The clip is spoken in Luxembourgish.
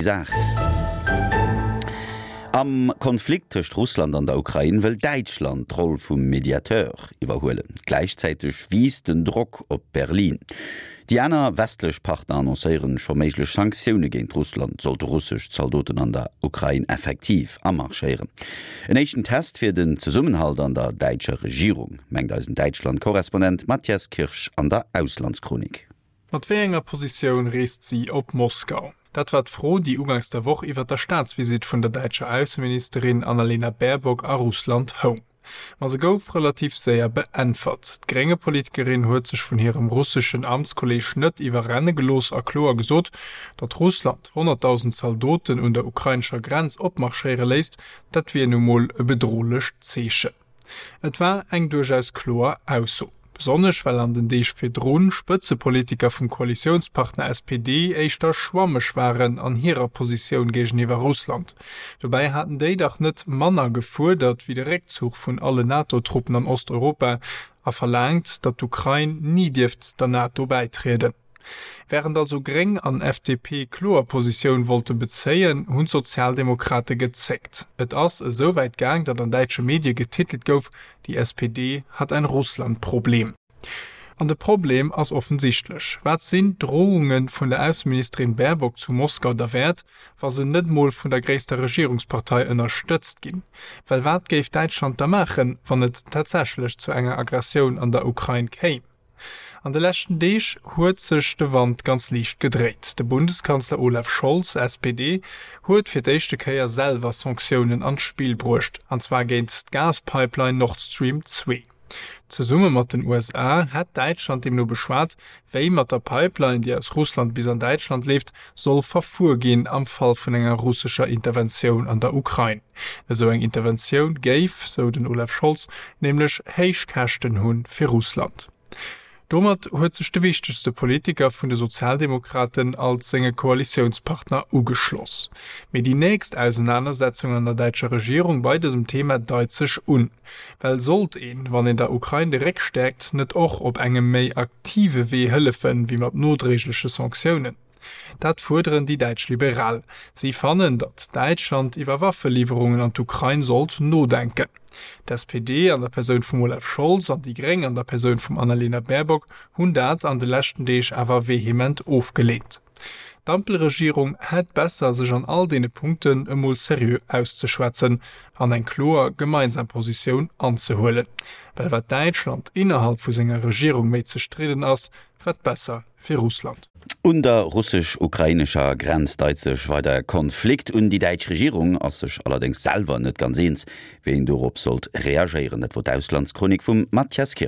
Saach. Am Konflikt tëscht Russland an der Ukrain wëll Däitschland d'Roll vum Mediateur iwwerhuelen. Gläichzäiteg wiisst den Drock op Berlin. Déi aner westlech Partner annoncéieren scho méiglech Sanktioune géint Russland, sollte russesch Zaldoten an der Ukrain effektiv amarschéieren. En éischten Test fir den Zesummenhalt an der däitscher Regierung, mengt eisen Däitschland-Korrespondent Matthias Kirsch an der Auslandschronik. Mat wéi enger Positioun reest si op Moskau? Dat war d'Fro, déi uganks der Woch iwwer der Staatsvisitt vun der däitscher Ausseministerin Annalena Baerbock a Russland houng. Ma se gouf relativ séier beäntwert. D'Grénge-Politikerin huet sech vun hirem russeschen Amtskolleeg net iwwerrenne gelooss a kloer gesot, datt Russland 100.000 Zaldoten un der ukrainescher Grenz opmarschéiere léisst, dat wier nu mol e bedrohlecht Zeechen. Et war eng duerchaus kloer Ausso. Besonnesch well an den Deeg virdrun Spëtzepolitiker vum Koalitiounspartner SPD éischter schwammeg waren an hirer Positioun géigeniwwer Russland. Dobäi haten déi dach net manner gefuerdert wéi de Réckzuch vun alle NATO-Truppen an Osteuropa a verlaangt, datt d'Ukrain ni dierft der NATO bäitrieden. Wärend also Gréng an FDP kloer Positioun wollte bezéien, hunn d'Sozialdemokrate gezéckt. Et ass esou wäit gaang, datt an däitsche Medie getitelt gouf, Die SPD hat ein Russland-Problem. An de Problem ass offensichtlech. Wat sinn d'Drohunge vun der Ausseministerin Baerbock zu Moskau derwäert, wa se net mol vun der gréisster Regierungspartei ënnerstëtzt ginn? Well wat géif Däitschland da maachen, wann et tatsächlech zu enger Aggressioun an der Ukrain kéim? An de leschten Deeg huet sech de Wand ganz liicht gedréit. De Bundeskanzler Olaf Scholz, SPD, huet fir d'éischte Kéier selwer Sanktiounen an d'Spill bruecht, an zwar géint d'Gaspipeline Nord Stream 2. Zesumme mat den USA hätt Däitschland deemno beschwat, wéi mat der Pipeline, déi aus Russland bis an Däitschland leeft, soll verfuer ginn am Fall vun enger russescher Interventioun an der Ukrain. Esou eng Interventioun géif, sou den Olaf Scholz, nämlech héich Käschten hu fir Russland. Domat huet sech de wichtegste Politiker vun de Sozialdemokraten als senge Koalitiounspartner ugeschloss. Mee déi nächst Ausenanersetzung an der däitscher Regierung bei dësem Thema deit sech un. Well sollt een, wann een der Ukrain de Réck stäerkt, net och op engem méi aktive Wee hëllefen, wéi mat nodréigleche Sanktiounen? Dat fuerderen déi däitsch Liberal. Si fannen, datt Däitschland iwwer Waffeliwwerungen an d'Ukrain sollt nodenken. D'SPD an der Persoun vum Olaf Scholz an déi Gréng an der Persoun vum Annalena Baerbock hunn dat an de leschten Deeg awer vehement ofgeleent. D'Ampelregierung hätt besser, sech an all deene Punkten emol seriö auszeschwätzen an eng kloer gemeinsam Positioun anzehuelen. Well wat Däitschland innerhalb vu senger Regierung méi zerstridden ass, wat besser fir Russland. Un der russesch-ukrainescher Grenz deit sech weider e Konflikt un. Déi däitsch Regierung ass sech allerdéngs selwer net ganz eens, wéi een dorop sollt reagéieren. Dat wor d'Auslandschronik vum Mathias Kirsch.